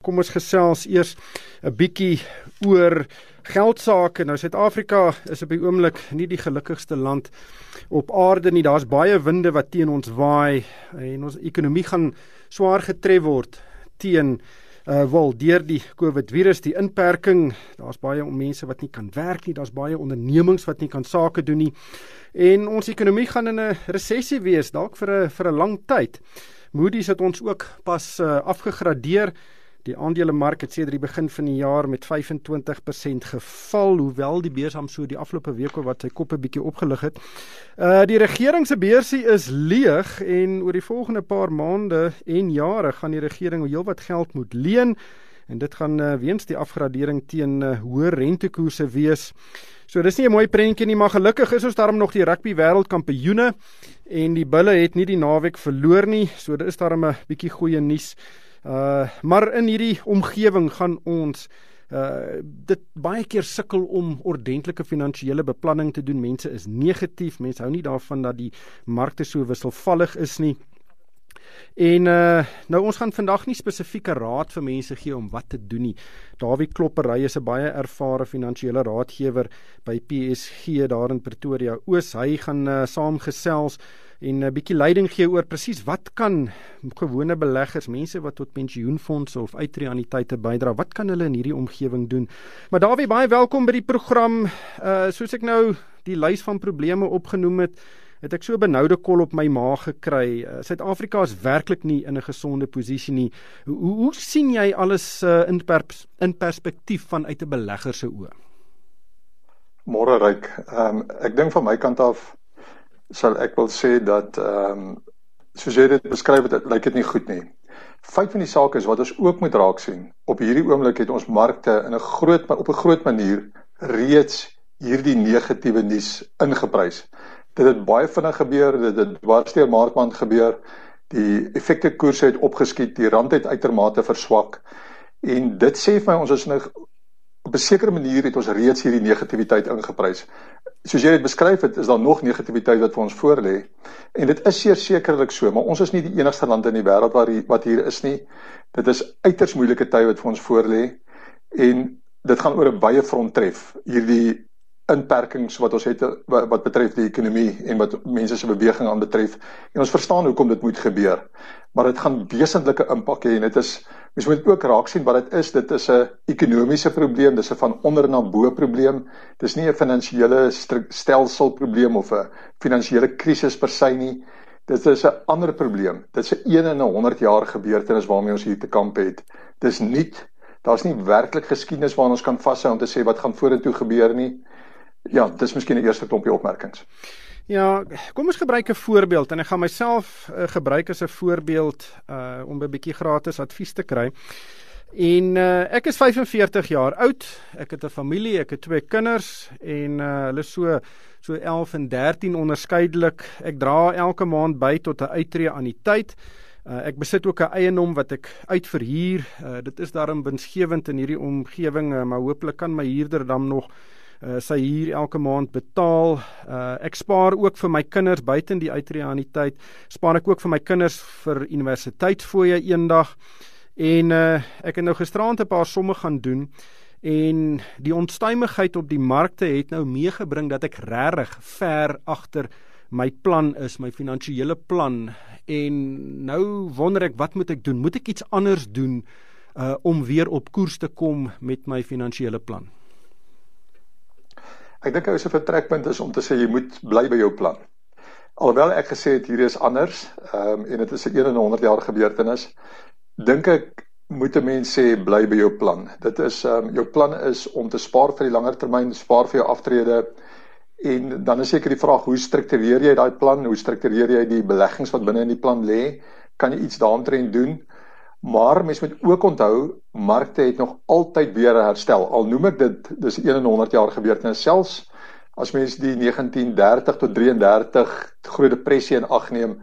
Kom ons gesels eers 'n bietjie oor geldsake. Nou Suid-Afrika is op die oomblik nie die gelukkigste land op aarde nie. Daar's baie winde wat teen ons waai en ons ekonomie gaan swaar getref word deur die COVID-virus, die inperking. Daar's baie mense wat nie kan werk nie, daar's baie ondernemings wat nie kan sake doen nie. En ons ekonomie gaan in 'n resessie wees, dalk vir 'n lang tyd. Moody's het ons ook pas afgegradeer. Die aandelemark het sedert die begin van die jaar met 25% geval, hoewel die beurs so die afgelope week wat sy kop 'n bietjie opgelig het. Die regering se beursie is leeg en oor die volgende paar maande en jare gaan die regering heelwat geld moet leen en dit gaan weens die afgradering teen hoë rentekoerse wees. So dis nie 'n mooi prentjie nie, maar gelukkig is ons daarom nog die rugby wêreldkampioene en die bulle het nie die naweek verloor nie, so dit is daarom 'n bietjie goeie nuus. Maar in hierdie omgewing gaan ons dit baie keer sukkel om ordentlike finansiële beplanning te doen. Mense is negatief, mense hou nie daarvan dat die markte so wisselvallig is nie. En nou ons gaan vandag nie spesifieke raad vir mense gee om wat te doen nie. Dawie Kloppery is 'n baie ervare finansiële raadgewer by PSG daar in Pretoria Oos. Hy gaan saamgesels en 'n bietjie leiding gee oor presies wat kan gewone beleggers, mense wat tot pensioenfondse of uitreaniteite bydra, wat kan hulle in hierdie omgewing doen? Maar Dawie, baie welkom by die program. Soos ek nou die lys van probleme opgenoem het ek so 'n benoude kol op my maag gekry. Suid-Afrika is werklik nie in 'n gesonde posisie nie. Hoe sien jy alles in perspektief vanuit 'n belegger se oë? Môre Ryk. Ek dink van my kant af sal ek wil sê dat soos jy dit beskryf het, lyk dit nie goed nie. Feit van die saak is wat ons ook moet raak sien. Op hierdie oomblik het ons markte op 'n groot manier reeds hierdie negatiewe nuus ingeprys. Dit het baie vinnig gebeur, dit het dwars deur Maart gebeur. Die effekte koerse het opgeskiet, die rand het uitermate verswak. En dit sê vir my ons is op 'n sekere manier het ons reeds hierdie negativiteit ingeprys. Soos jy dit beskryf het, is daar nog negativiteit wat vir ons voorlê. En dit is sekerlik so, maar ons is nie die enigste land in die wêreld wat hier is nie. Dit is uiters moeilike tye wat vir ons voorlê. En dit gaan oor 'n baie front tref. Hierdie inperkings wat ons het wat betref die ekonomie en wat mense se beweging aan betref. En ons verstaan hoekom dit moet gebeur. Maar dit gaan wesentlike impak hê en mens moet ook raak sien wat dit is. Dit is 'n ekonomiese probleem, dis 'n van onder na bo probleem. Dis nie 'n finansiële stelselprobleem of 'n finansiële krisis per se nie. Dit is 'n ander probleem. Dit is 'n 1 in 100 jaar gebeurtenis waarmee ons hier te kamp het. Dis nuut. Daar's nie werklik geskiedenis waarna ons kan vashou om te sê wat gaan vorentoe gebeur nie. Ja, dis miskien 'n eerste klompie opmerkings. Ja, kom ons gebruik 'n voorbeeld en ek gaan myself gebruik as 'n voorbeeld om 'n bietjie gratis advies te kry. En ek is 45 jaar oud, ek het 'n familie, ek het 2 kinders en hulle so 11 en 13 onderskeidelik. Ek dra elke maand by tot 'n uitreaniteit. Ek besit ook 'n eiendom wat ek uitverhuur. Dit is daarom winsgewend in hierdie omgewing, maar hopelik kan my huurder dan nog sy huur elke maand betaal. Ek spaar ook vir my kinders buiten die uitreaniteit. Spaar ek ook vir my kinders vir universiteitsfooie eendag. En ek het nou gisteraand 'n paar somme gaan doen en die onstuimigheid op die markte het nou meegebring dat ek regtig ver agter my plan is, my finansiële plan. En nou wonder ek, wat moet ek doen? Moet ek iets anders doen om weer op koers te kom met my finansiële plan? Ek dink 'n vertrekpunt is om te sê jy moet bly by jou plan. Alhoewel ek gesê het hier is anders, en dit is 'n 1 in 100 jaar gebeurtenis, dink ek moet 'n mens sê bly by jou plan. Dit is jou plan is om te spaar vir die langer termyn, spaar vir jou aftrede. En dan is seker die vraag, hoe struktureer jy daai plan? Hoe struktureer jy die beleggings wat binne in die plan lê? Kan jy iets daaromtrent doen? Maar mens moet ook onthou, markte het nog altyd weer herstel. Al noem ek dit, dis 1 in 100 jaar gebeurtenis. Selfs as mens die 1930 tot 33 groot depressie in ag neem,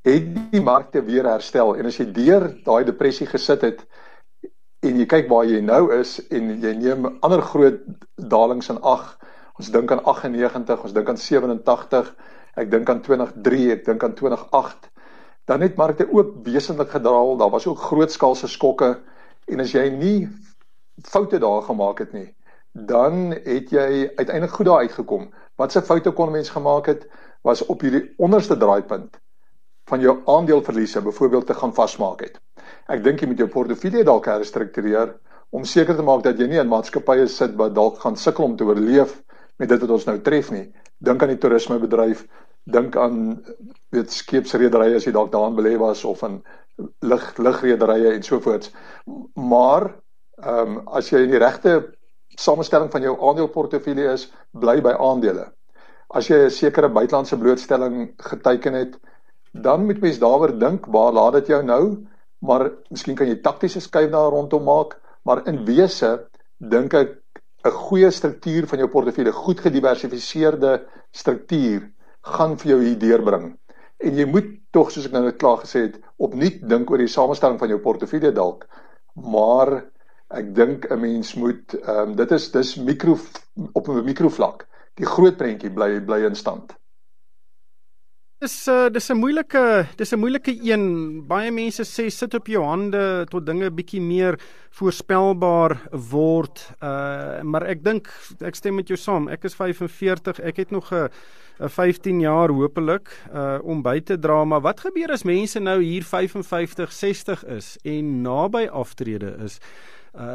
het die markte weer herstel. En as jy deur daai depressie gesit het en jy kyk waar jy nou is en jy neem ander groot dalings in ag, ons dink aan 98, ons dink aan 87, ek dink aan 2003, ek dink aan 2008, dan het markte ook wesentlik gedaal, daar was ook grootskaalse skokke, En as jy nie foute daar gemaak het nie, dan het jy uiteindelik goed daar uitgekom. Wat se foute kon mens gemaak het, was op hierdie onderste draaipunt van jou aandeleverliese byvoorbeeld te gaan vasmaak het. Ek dink jy moet jou portefeulje dalk herstruktureer om seker te maak dat jy nie in maatskappye sit wat dalk gaan sukkel om te oorleef met dit wat ons nou tref nie. Dink aan die toerismebedryf, dink aan skeepsrederye as jy dalk daarin belê was of in lugrederye en sovoorts. Maar as jy in die regte samestelling van jou aandeleportefeulje is, bly by aandele. As jy 'n sekere buitelandse blootstelling geteken het, dan moet mens daaroor dink, waar laat dit jou nou, maar miskien kan jy taktiese skuif daar rondom maak, maar in wese dink ek 'n goeie struktuur van jou portefeulje, goed gediversifiseerde struktuur, gaan vir jou hier deurbring. En jy moet tog, soos ek nou net klaar gesê het, opnuut dink oor die samestelling van jou portefeulje dalk, maar ek dink 'n mens moet, dis op 'n mikrovlak, die groot prentjie bly in stand. Dis 'n moeilike een. Baie mense sê sit op jou hande tot dinge bietjie meer voorspelbaar word. Maar ek dink ek stem met jou saam. Ek is 45, ek het nog 'n 15 jaar hopelik om by te dra, maar wat gebeur as mense nou hier 55, 60 is en naby aftrede is?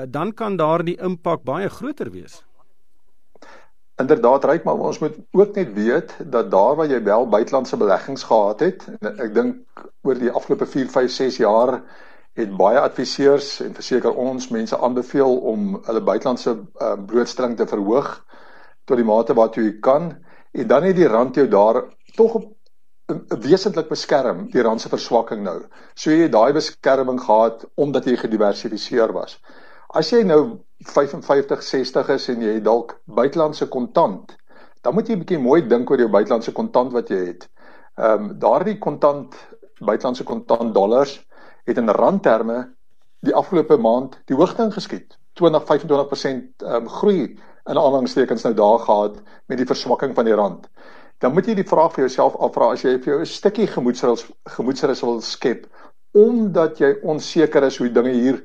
Dan kan daar die impak baie groter wees. Inderdaad, Ryk, maar ons moet ook net weet dat daar waar jy wel buitelandse beleggings gehad het, en ek dink oor die afgelope 4, 5, 6 jaar het baie adviseurs en verseker ons mense aanbeveel om hulle buitelandse blootstelling te verhoog tot die mate waartoe jy kan, en dan het die rand jou daar tog wesentlik beskerm, die rand se verswakking nou. So jy het daai beskerming gehad omdat jy gediversifiseer was. As jy nou 55, 60 is en jy het dalk buitelandse kontant, dan moet jy 'n bietjie mooi dink oor jou buitelandse kontant wat jy het. Daardie buitelandse kontant dollars het in randterme die afgelope maand die hoogte ingeskiet. 20-25% groei in aanhalingstekens nou daar gehad met die verswakking van die rand. Dan moet jy die vraag vir jouself afvra, as jy vir jou 'n stukkie gemoedsrus wil skep, omdat jy onseker is hoe dinge hier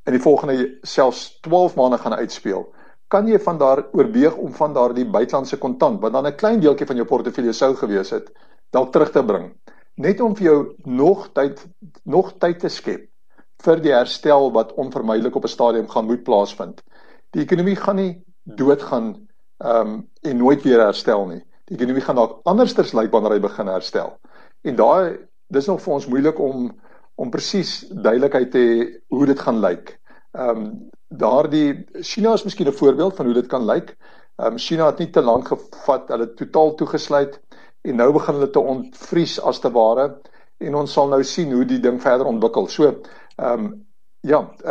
in die volgende selfs 12 maande gaan uitspeel, kan jy van daar oorweeg om van daar die buitelandse kontant, wat dan 'n klein deeltjie van jou portefeulje sou gewees het, dalk terug te bring. Net om vir jou nog tyd te skep vir die herstel wat onvermydelik op 'n stadium gaan moet plaasvind. Die ekonomie gaan nie doodgaan en nooit weer herstel nie. Die ekonomie gaan dalk andersters lyk wanneer hy begin herstel. En dis nog vir ons moeilik om presies duidelikheid te hê hoe dit gaan lyk. China is miskien 'n voorbeeld van hoe dit kan lyk. China het nie te lank gevat, hulle het totaal toegesluit en nou begin hulle te ontvries as te ware en ons sal nou sien hoe die ding verder ontwikkel. So,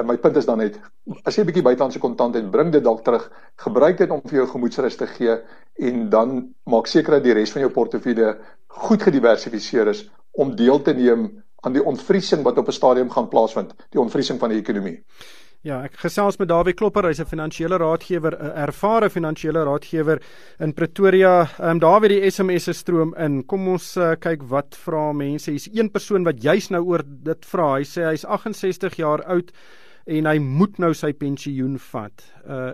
my punt is dan net, as jy 'n bietjie buitelandse kontant het, bring dit dalk terug, gebruik dit om vir jou gemoedsrus te gee en dan maak seker dat die res van jou portefeulje goed gediversifiseer is om deel te neem aan die ontvriesing wat op 'n stadium gaan plaasvind, die ontvriesing van die ekonomie. Ja, ek gesels met Dawie Klopper, hy's 'n finansiële raadgewer, 'n ervare finansiële raadgewer in Pretoria. Dawie, die SMS'e stroom in. Kom ons kyk wat vra mense. Hier's een persoon wat juis nou oor dit vra. Hy sê hy's 68 jaar oud en hy moet nou sy pensioen vat.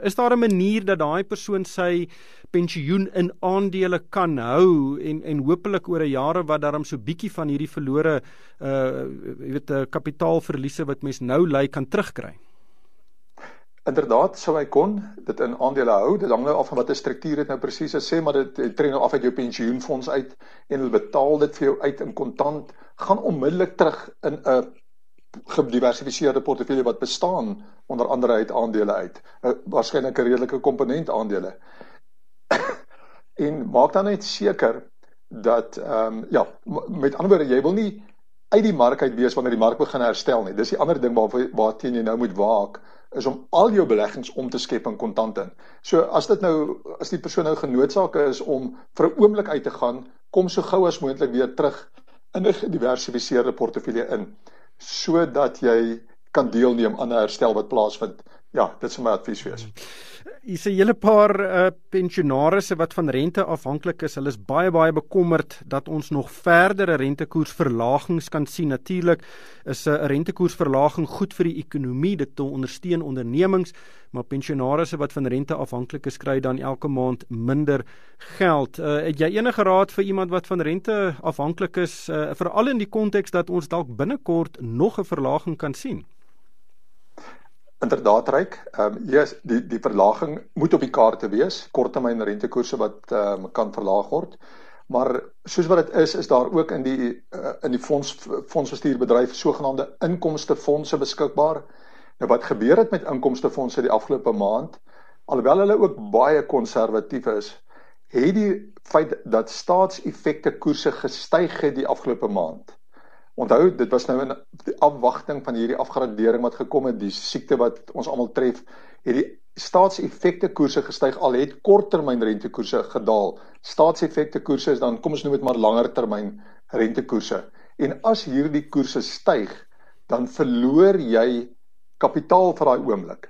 Is daar 'n manier dat daai persoon sy pensioen in aandele kan hou en hopelik oor 'n jare wat daarom so bietjie van hierdie verlore kapitaalverliese wat mens nou ly kan terugkry? Inderdaad, sou hy kon dit in aandele hou. Dit hang nou af van watter struktuur dit nou presies is, sê maar dit trek nou af uit jou pensioenfonds uit en hulle betaal dit vir jou uit in kontant, gaan onmiddellik terug in 'n gediversifiseerde portefeulje wat bestaan onder andere uit aandele uit. Waarskynlik 'n redelike komponent aandele. En maak dan net seker dat met ander woorde, jy wil nie uit die mark uit wees wanneer die mark begin herstel nie. Dis die ander ding waarteen jy nou moet waak, is om al jou beleggings om te skep in kontant in. So as die persoon nou genoodsaak is om vir 'n oomblik uit te gaan, kom so gou as moontlik weer terug in 'n gediversifiseerde portefeulje in, sodat jy kan deelneem aan 'n herstel wat plaasvind Ja, dit sou my advies wees. Hier's 'n hele paar pensionarisse wat van rente afhanklik is. Hulle is baie bekommerd dat ons nog verdere rentekoersverlagings kan sien. Natuurlik is 'n rentekoersverlaging goed vir die ekonomie, dit te ondersteun ondernemings, maar pensionarisse wat van rente afhanklik is, kry dan elke maand minder geld. Het jy enige raad vir iemand wat van rente afhanklik is, veral in die konteks dat ons dalk binnekort nog 'n verlaging kan sien? Inderdaad, Ryk. Yes, die verlaging moet op die kaarte wees, korttermyn rentekoerse wat kan verlaag word. Maar soos wat dit is daar ook in die fondsbestuurbedryf sogenaamde inkomstefondse beskikbaar. Nou wat gebeur het met inkomstefondse die afgelope maand, alhoewel hulle ook baie konservatief is, het die feit dat staatseffekte koerse gestyg het die afgelope maand. Onthou, dit was nou in die afwagting van hierdie afgradering wat gekom het, die siekte wat ons almal tref, het die staatseffekte koerse gestyg, al het korttermyn rentekoerse gedaal. Staatseffekte koerse is dan, kom ons noem dit maar langer termyn rentekoerse. En as hierdie koerse styg, dan verloor jy kapitaal vir daai oomblik.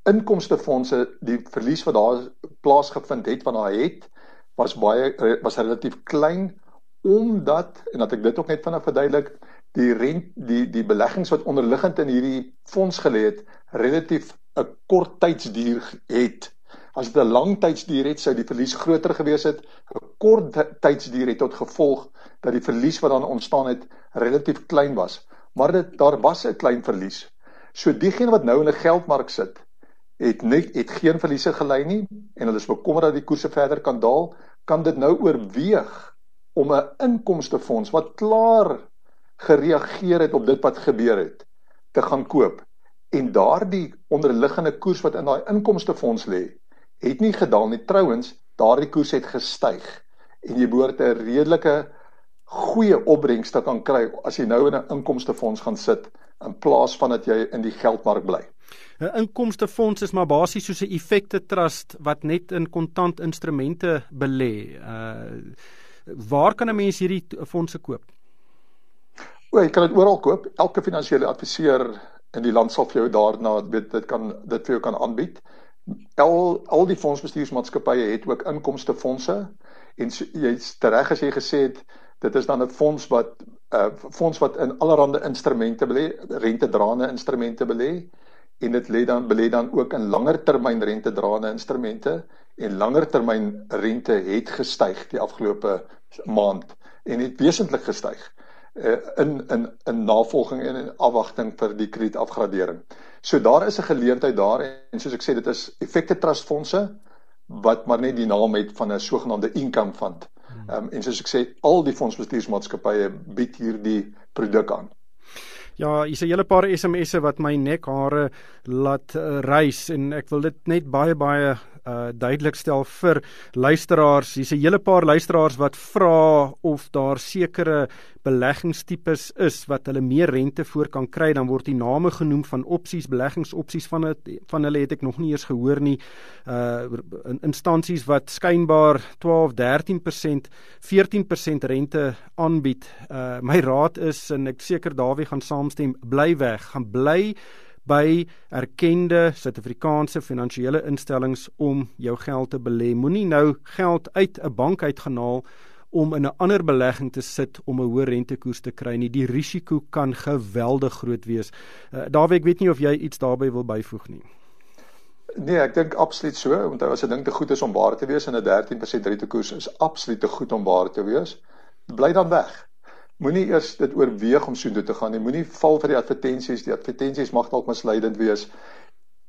Inkomstefondse, die verlies wat daar plaasgevind het, van daar het, was relatief klein, omdat, en dat ek dit ook net vinnig verduidelik, die beleggings wat onderliggend in hierdie fonds gelê het, relatief 'n kort tydsduur het. As dit 'n lang tydsduur het, sou die verlies groter gewees het. 'n Kort tydsduur het tot gevolg dat die verlies wat dan ontstaan het, relatief klein was. Maar daar was 'n klein verlies. So diegene wat nou in 'n geldmark sit, het geen verliese gelei nie, en hulle is bekommerd dat die koerse verder kan daal, kan dit nou oorweeg om 'n inkomstefonds wat klaar gereageer het op dit wat gebeur het, te gaan koop. En daardie onderliggende koers wat in daai inkomstefonds lê, het nie gedaal nie. Trouwens, daardie koers het gestyg. En jy behoort 'n redelike goeie opbrengs te kan kry as jy nou in 'n inkomstefonds gaan sit, in plaas van dat jy in die geldmark bly. 'n Inkomstefonds is maar basies soos 'n effekte trust wat net in kontant instrumente belê. Waar kan 'n mens hierdie fondse koop? Jy kan dit oral koop. Elke finansiële adviseur in die land sal vir jou daarna dit vir jou kan aanbied. Al die fondsbestuursmaatskappye het ook inkomstefondse, en jy's reg as jy gesê het, dit is dan 'n fonds wat in allerlei instrumente belê, rentedraende instrumente belê, en dit belê dan ook in langer termyn rentedraende instrumente, en langer termyn rente het gestyg die afgelope maand, en het wesentlik gestyg in navolging en in afwagting vir die kredietafgradering. So daar is 'n geleentheid daar, en soos ek sê, dit is effekte trustfondse wat maar net die naam het van 'n sogenaamde income fund. En soos ek sê, al die fondsbestuursmaatskappye bied hierdie produk aan. Ja, hier's 'n hele paar SMS'e wat my nekhare laat reis, en ek wil dit net baie duidelik stel vir luisteraars. Hier's 'n hele paar luisteraars wat vra of daar sekere beleggingstipes is wat hulle meer rente voor kan kry. Dan word die name genoem van opsies, beleggingsopsies van hulle het ek nog nie eers gehoor nie. Instansies wat skynbaar 12, 13%, 14% rente aanbied. My raad is, en ek seker Dawie gaan saamstem, bly weg. Gaan bly by erkende Suid-Afrikaanse finansiële instellings om jou geld te belê. Moenie nou geld uit 'n bank uitgehaal om in 'n ander belegging te sit om 'n hoë rentekoers te kry nie. Die risiko kan geweldig groot wees. Dawie, ek weet nie of jy iets daarbey wil byvoeg nie. Nee, ek dink absoluut so, want as 'n ding te goed is om waar te wees, en 'n 13% rentekoers is absoluut te goed om waar te wees, bly dan weg. Moenie eers dit oorweeg om so toe te gaan nie. Moenie val vir die advertensies mag dalk misleidend wees.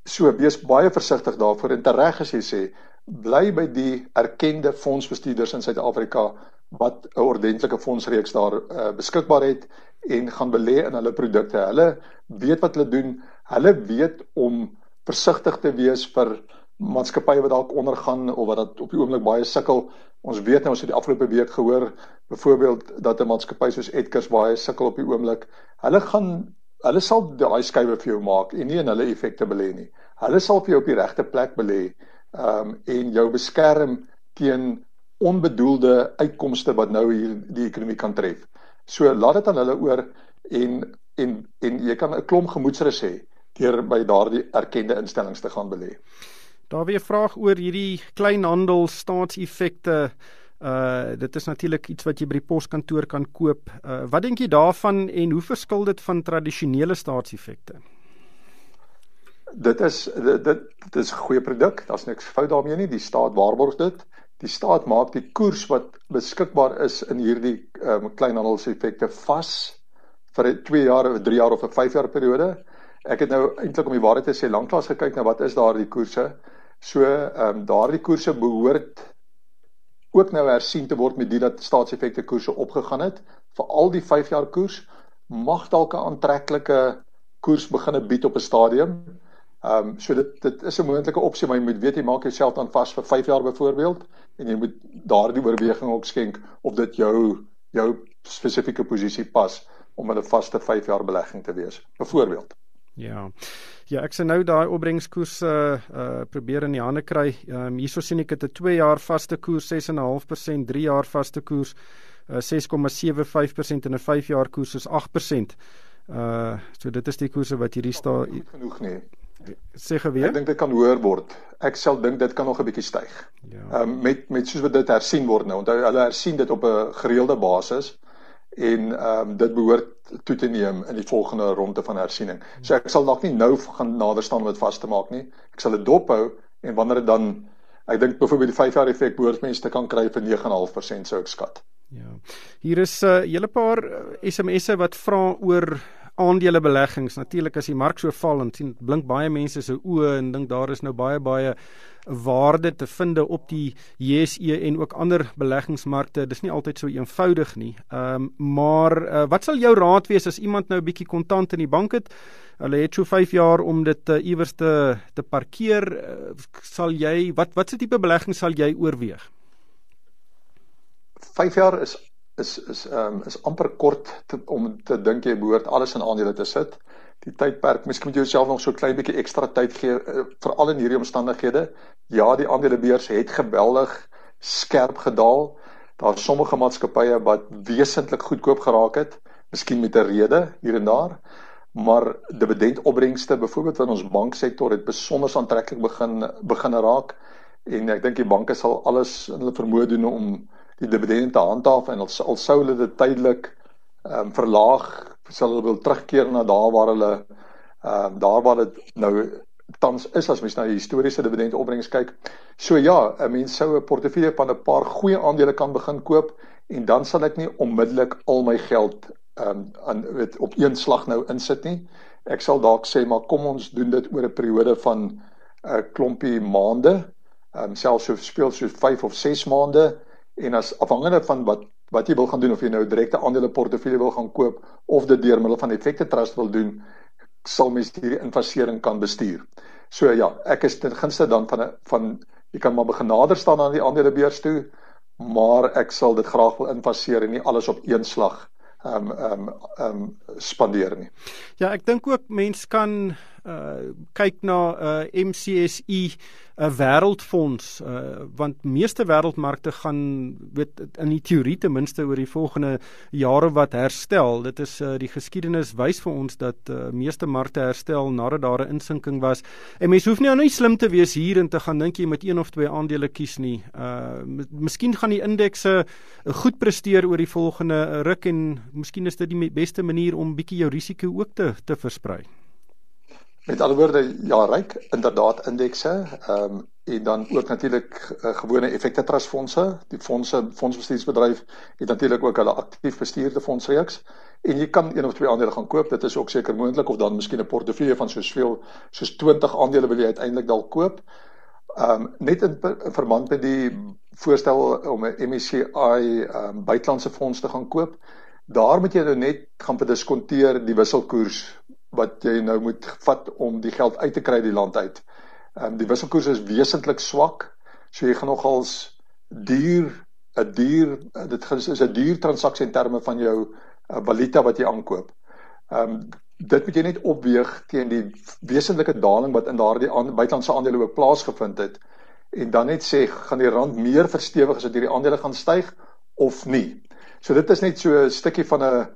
So, wees baie versigtig daarvoor, en tereg as jy sê, bly by die erkende fondsbestuurders in Suid-Afrika wat 'n ordentlike fondsreeks daar beskikbaar het, en gaan belê in hulle produkte. Hulle weet wat hulle doen. Hulle weet om versigtig te wees vir maatskappye wat dalk ondergaan of wat op die oomblik baie sukkel. Ons weet nou, ons het die afgelope week gehoor, byvoorbeeld dat 'n maatskappy soos Edgars baie sukkel op die oomblik. Hulle sal daai skuwe vir jou maak en nie in hulle effekte belê nie. Hulle sal vir jou op die regte plek belê en jou beskerm teen onbedoelde uitkomste wat nou hier die ekonomie kan tref. So laat dit aan hulle oor, en jy kan 'n klomp gemoedsrus hê. deur by daardie erkende instellings te gaan belê. Daar weer 'n vraag oor hierdie kleinhandel staatseffekte. Dit is natuurlik iets wat jy by die poskantoor kan koop. Wat dink jy daarvan en hoe verskil dit van tradisionele staatseffekte? Dit is 'n goeie produk, daar's niks fout daarmee nie, die staat waarborg dit. Die staat maak die koers wat beskikbaar is in hierdie kleinhandelseffekte vas vir 'n 2 jaar, 'n 3 jaar of 'n 5 jaar periode. Ek het nou eintlik om die waarheid te sê lanklaas gekyk na wat is daardie koerse. So daardie koerse behoort ook nou hersien te word met die dat staatseffekte koerse opgegaan het. Veral die 5 jaar koers mag dalk 'n aantreklike koers begin bied op 'n stadium. So dit is 'n moontlike opsie, maar jy moet weet jy maak jouself dan vas vir 5 jaar byvoorbeeld en jy moet daardie oorweging ook skenk of dit jou spesifieke posisie pas om 'n vaste 5 jaar belegging te wees, byvoorbeeld. Ja, ek sê nou daai opbrengskoerse probeer in die hande kry. Hierso sien ek dit 'n 2 jaar vaste koers 6,5%, 3 jaar vaste koers 6,75% en 'n 5 jaar koers is 8%. So dit is die koerse wat hierdie goed genoeg nie. Sê geweer. Ek dink dit kan hoër word. Ek sal dink dit kan nog 'n bietjie styg. Ja. Met soos wat dit hersien word nou. Onthou hulle hersien dit op 'n gereelde basis en dit behoort toe te neem in die volgende ronde van hersiening. So ek sal dalk nie nou gaan nader staan om dit vas te maak nie. Ek sal dit dophou en wanneer dit dan, ek dink byvoorbeeld die 5 jaar effek behoort mense te kan kry vir 9,5% sou ek skat. Ja. Hier is 'n hele paar SMS'e wat vra oor aandelebeleggings. Natuurlik as die mark so val en sien blink baie mense se oë en dink daar is nou baie waarde te vind op die JSE en ook ander beleggingsmarkte. Dis nie altyd so eenvoudig nie. Maar wat sal jou raad wees as iemand nou 'n bietjie kontant in die bank het? Hulle het so 5 jaar om dit iewers te parkeer. Sal jy wat se tipe belegging sal jy oorweeg? 5 jaar is amper kort om te dink jy behoort alles in aandele te sit. Die tydperk, miskien moet jy jouself nog so 'n klein bietjie ekstra tyd gee, veral in hierdie omstandighede. Ja, die aandelebeurs het geweldig skerp gedaal. Daar is sommige maatskappye wat wesentlik goedkoop geraak het, miskien met 'n rede hier en daar, maar dividendopbrengste byvoorbeeld in ons banksektor het besonder aantreklik begin raak en ek dink die banke sal alles in hulle vermoë doen om die dividende te handhaaf en al sou hulle dit tydelik verlaag, sal hulle wil terugkeer na daar waar dit nou tans is as mens na die historiese dividendopbrengs kyk. So ja, 'n mens sou 'n portefeulje van 'n paar goeie aandele kan begin koop en dan sal ek nie onmiddellik al my geld op een slag nou insit nie. Ek sal dalk sê maar kom ons doen dit oor 'n periode van 'n klompie maande, selfs soos 5 of 6 maande. En as afhangende van wat jy wil gaan doen, of jy nou direkte aandele portefeulje wil gaan koop of dit deur middel van effekte trust wil doen, sal mens hierdie investering kan bestuur. So ja, ek is ten gunste dan van jy kan maar begin nader staan aan die aandelebeurs toe, maar ek sal dit graag wil investeer en nie alles op een slag spandeer nie. Ja, ek dink ook mens kan kyk na MCSI, 'n wêreldfonds, want meeste wêreldmarkte gaan in die teorie ten minste oor die volgende jare wat herstel. Dit is die geskiedenis wys vir ons dat meeste markte herstel nadat daar 'n insinking was. En mens hoef nie slim te wees hier en te gaan dink jy moet 1 of 2 aandele kies nie. Miskien gaan die indekse goed presteer oor die volgende ruk en miskien is dit die beste manier om bietjie jou risiko ook te versprei. Met ander woorde, ja, ryk, inderdaad indekse, en dan ook natuurlik gewone effekte trustfondse. Die fondsbestuursbedryf het natuurlik ook hulle aktief bestuurde fondsreeks. En jy kan 1 of 2 aandele gaan koop, dit is ook seker moontlik, of dan miskien 'n portefeulje van soos 20 aandele wil jy uiteindelik dalk koop. Net in verband met die voorstel om 'n MSCI buitelandse fonds te gaan koop, daar moet jy nou net gaan bediskonteer die wisselkoers wat jy nou moet vat om die geld uit te kry die land uit. Die wisselkoers is wesentlik swak, so jy gaan nogals dit is 'n duur transaksie in terme van jou valuta wat jy aankoop. Dit moet jy net opweeg teen die wesentlike daling wat in daardie buitelandse aandele ook plaasgevind het, en dan net sê, gaan die rand meer verstewig as dit hierdie aandele gaan styg, of nie. So dit is net so 'n stukkie van 'n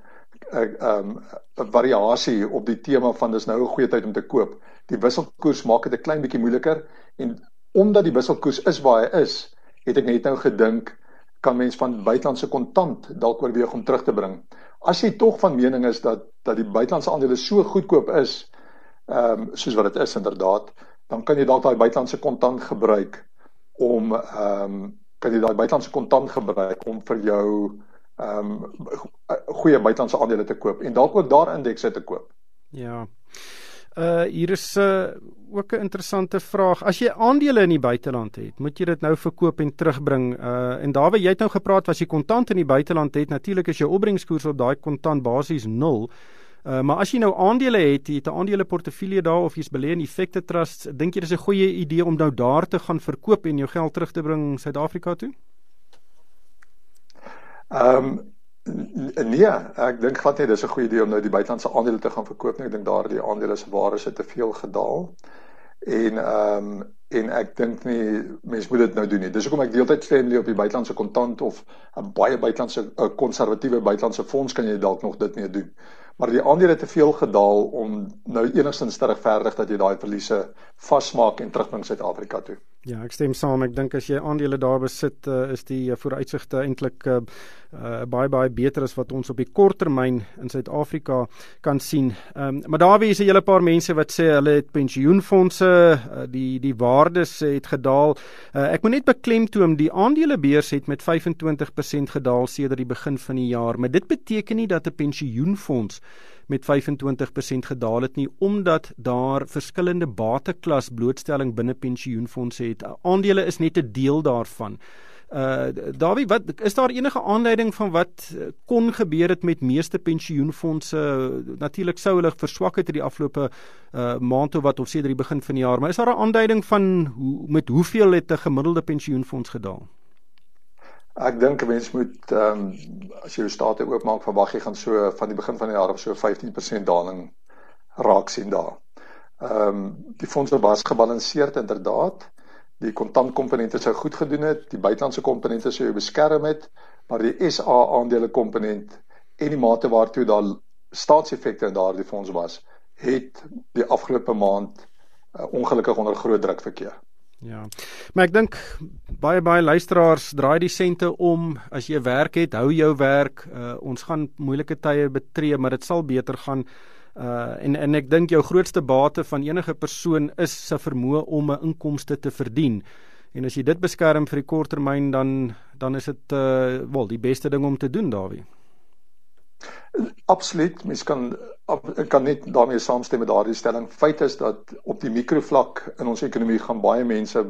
variasie op die tema van dis nou 'n goeie tyd om te koop. Die wisselkoers maak dit 'n klein bietjie moeiliker en omdat die wisselkoers is waar hy is, het ek net nou gedink kan mens van buitelandse kontant dalk oorweeg om terug te bring. As jy tog van mening is dat die buitelandse aandele so goedkoop is, soos wat dit is inderdaad, dan kan jy dalk daai buitelandse kontant gebruik om vir jou goeie buitelandse aandele te koop en dalk ook daar indekse te koop. Ja. Hier is ook 'n interessante vraag. As jy aandele in die buiteland het, moet jy dit nou verkoop en terugbring. En Dawie, jy het nou gepraat as jy kontant in die buiteland het, natuurlik is jou opbrengskoers op daai kontant basies 0. Maar as jy nou aandele het, jy het 'n aandeleportefeulje daar of jy's belê in effekte trusts, dink jy dis 'n goeie idee om nou daar te gaan verkoop en jou geld terug te bring Suid-Afrika toe? Nee, ek dink glad nie dis 'n goeie idee om nou die buitelandse aandele te gaan verkoop nie. Ek dink daardie aandele se waarde het te veel gedaal. En ek dink nie mense moet dit nou doen nie. Dis hoekom ek deeltyd stem op die buitelandse kontant of 'n baie buitelandse konservatiewe buitelandse fonds kan jy dalk nog dit mee doen. Maar die aandele het te veel gedaal om nou enigstens te regverdig dat jy daai verliese vasmaak en terugbring Suid-Afrika toe. Ja, ek stem saam. Ek dink as jy aandele daar besit, is die vooruitsigte eintlik baie beter as wat ons op die kort termyn in Suid-Afrika kan sien. Maar daar is 'n hele paar mense wat sê hulle het pensioenfondse, die waardes het gedaal. Ek moet net beklemtoon, die aandelebeurs het met 25% gedaal sedert die begin van die jaar, maar dit beteken nie dat 'n pensioenfonds met 25% gedaal het nie, omdat daar verskillende bateklas blootstelling binne pensioenfondse het. Aandele is net 'n deel daarvan. Dawie, is daar enige aanleiding van wat kon gebeur het met meeste pensioenfondse? Natuurlik sou hulle verswak het in die afgelope maand of wat, of sedert die begin van die jaar, maar is daar 'n aanduiding van met hoeveel het 'n gemiddelde pensioenfonds gedaal? Ek dink 'n mens moet, as jy jou state oopmaak, verwag jy gaan so van die begin van die jaar op so 15% daling raak sien daar. Die fondse was gebalanseerd inderdaad. Die kontantkomponente sou goed gedoen het, die buitelandse komponente sou jou beskerm het, maar die SA aandele komponent en die mate waartoe daar staatseffekte in daardie fonds was, het die afgelope maand ongelukkig onder groot druk verkeer. Ja, maar ek dink baie luisteraars draai die sente om. As jy werk het, hou jou werk. Ons gaan moeilike tye betree, maar dit sal beter gaan. En ek dink jou grootste bate van enige persoon is sy vermoë om 'n inkomste te verdien. En as jy dit beskerm vir die kort termyn, dan is dit die beste ding om te doen, Dawie. Absoluut, mens kan net daarmee saamstem met daardie stelling. Feit is dat op die mikrovlak in ons ekonomie gaan baie mense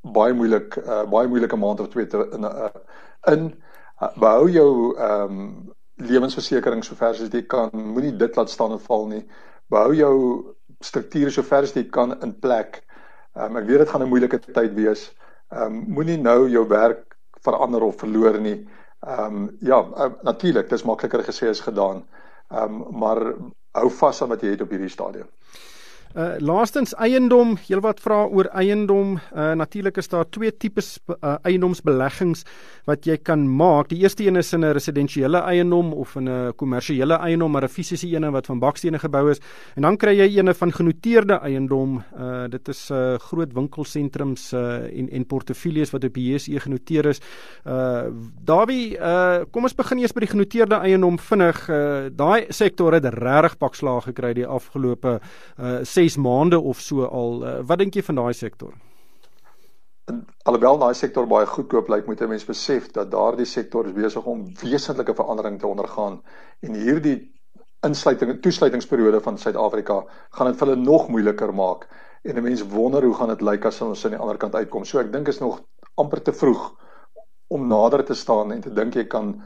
baie moeilike maand of twee behou jou lewensversekering sover as jy kan, moenie dit laat staan en val nie. Behou jou strukture sover as jy kan in plek. Ek weet dit gaan 'n moeilike tyd wees. Moenie nou jou werk verander of verloor nie. Natuurlik, dis makliker gesê as gedaan. Maar hou vas aan wat jy het op hierdie stadium. Laastens eiendom, heelwat vra oor eiendom. Natuurlik is daar twee tipes eiendomsbeleggings wat jy kan maak. Die eerste een is in 'n residensiële eiendom of in 'n kommersiële eiendom, maar 'n fisiese een wat van bakstene gebou is. En dan kry jy een van genoteerde eiendom. Dit is groot winkelsentrums en portefeuilles wat op die JSE genoteer is. Dawie, kom ons begin eers by die genoteerde eiendom vinnig. Daai sektor het regtig pakslaag gekry die afgelope 6 maande of so al. Wat dink jy van daai sektor? Alhoewel daai sektor baie goedkoop lyk, moet 'n mens besef dat daardie sektor is besig om wesentlike verandering te ondergaan. En hierdie toesluitingsperiode van Suid-Afrika gaan dit vir hulle nog moeiliker maak. En 'n mens wonder hoe gaan dit lyk as ons aan die ander kant uitkom. So ek dink is nog amper te vroeg om nader te staan en te dink jy kan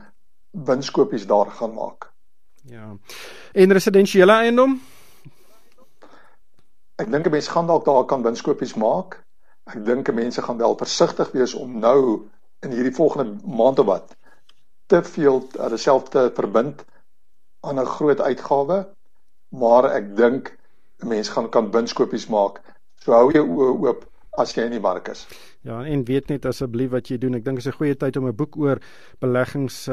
winskopies daar gaan maak. Ja. En residensiële eiendom? Ek dink 'n mens gaan dalk daar kan winskopies maak. Ek dink mense gaan wel versigtig wees om nou in hierdie volgende maand of wat te veel hulle self te verbind aan 'n groot uitgawe, maar ek dink mense kan winskopies maak. So hou jou oë oop as jy in die mark is. Ja, en weet net asseblief wat jy doen. Ek dink dit is 'n goeie tyd om 'n boek oor beleggings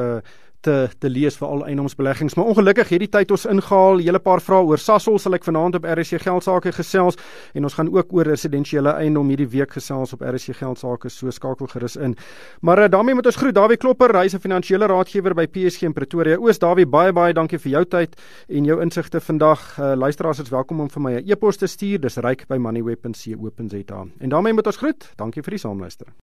te lees vir al eiendomsbeleggings. Maar ongelukkig hierdie tyd ons ingehaal. Hele paar vrae oor Sasol sal ek vanaand op RSC Geldsaake gesels en ons gaan ook oor residensiële eiendom hierdie week gesels op RSC Geldsaake, so skakel gerus in. Maar daarmee moet ons groet Dawie Klopper, hy is 'n finansiële raadgewer by PSG in Pretoria Oos. Dawie, baie dankie vir jou tyd en jou insigte vandag. Luisteraars is welkom om vir my 'n e-pos te stuur. Dis ryk@moneyweb.co.za. En daarmee moet ons groet. Dankie vir die saamluister.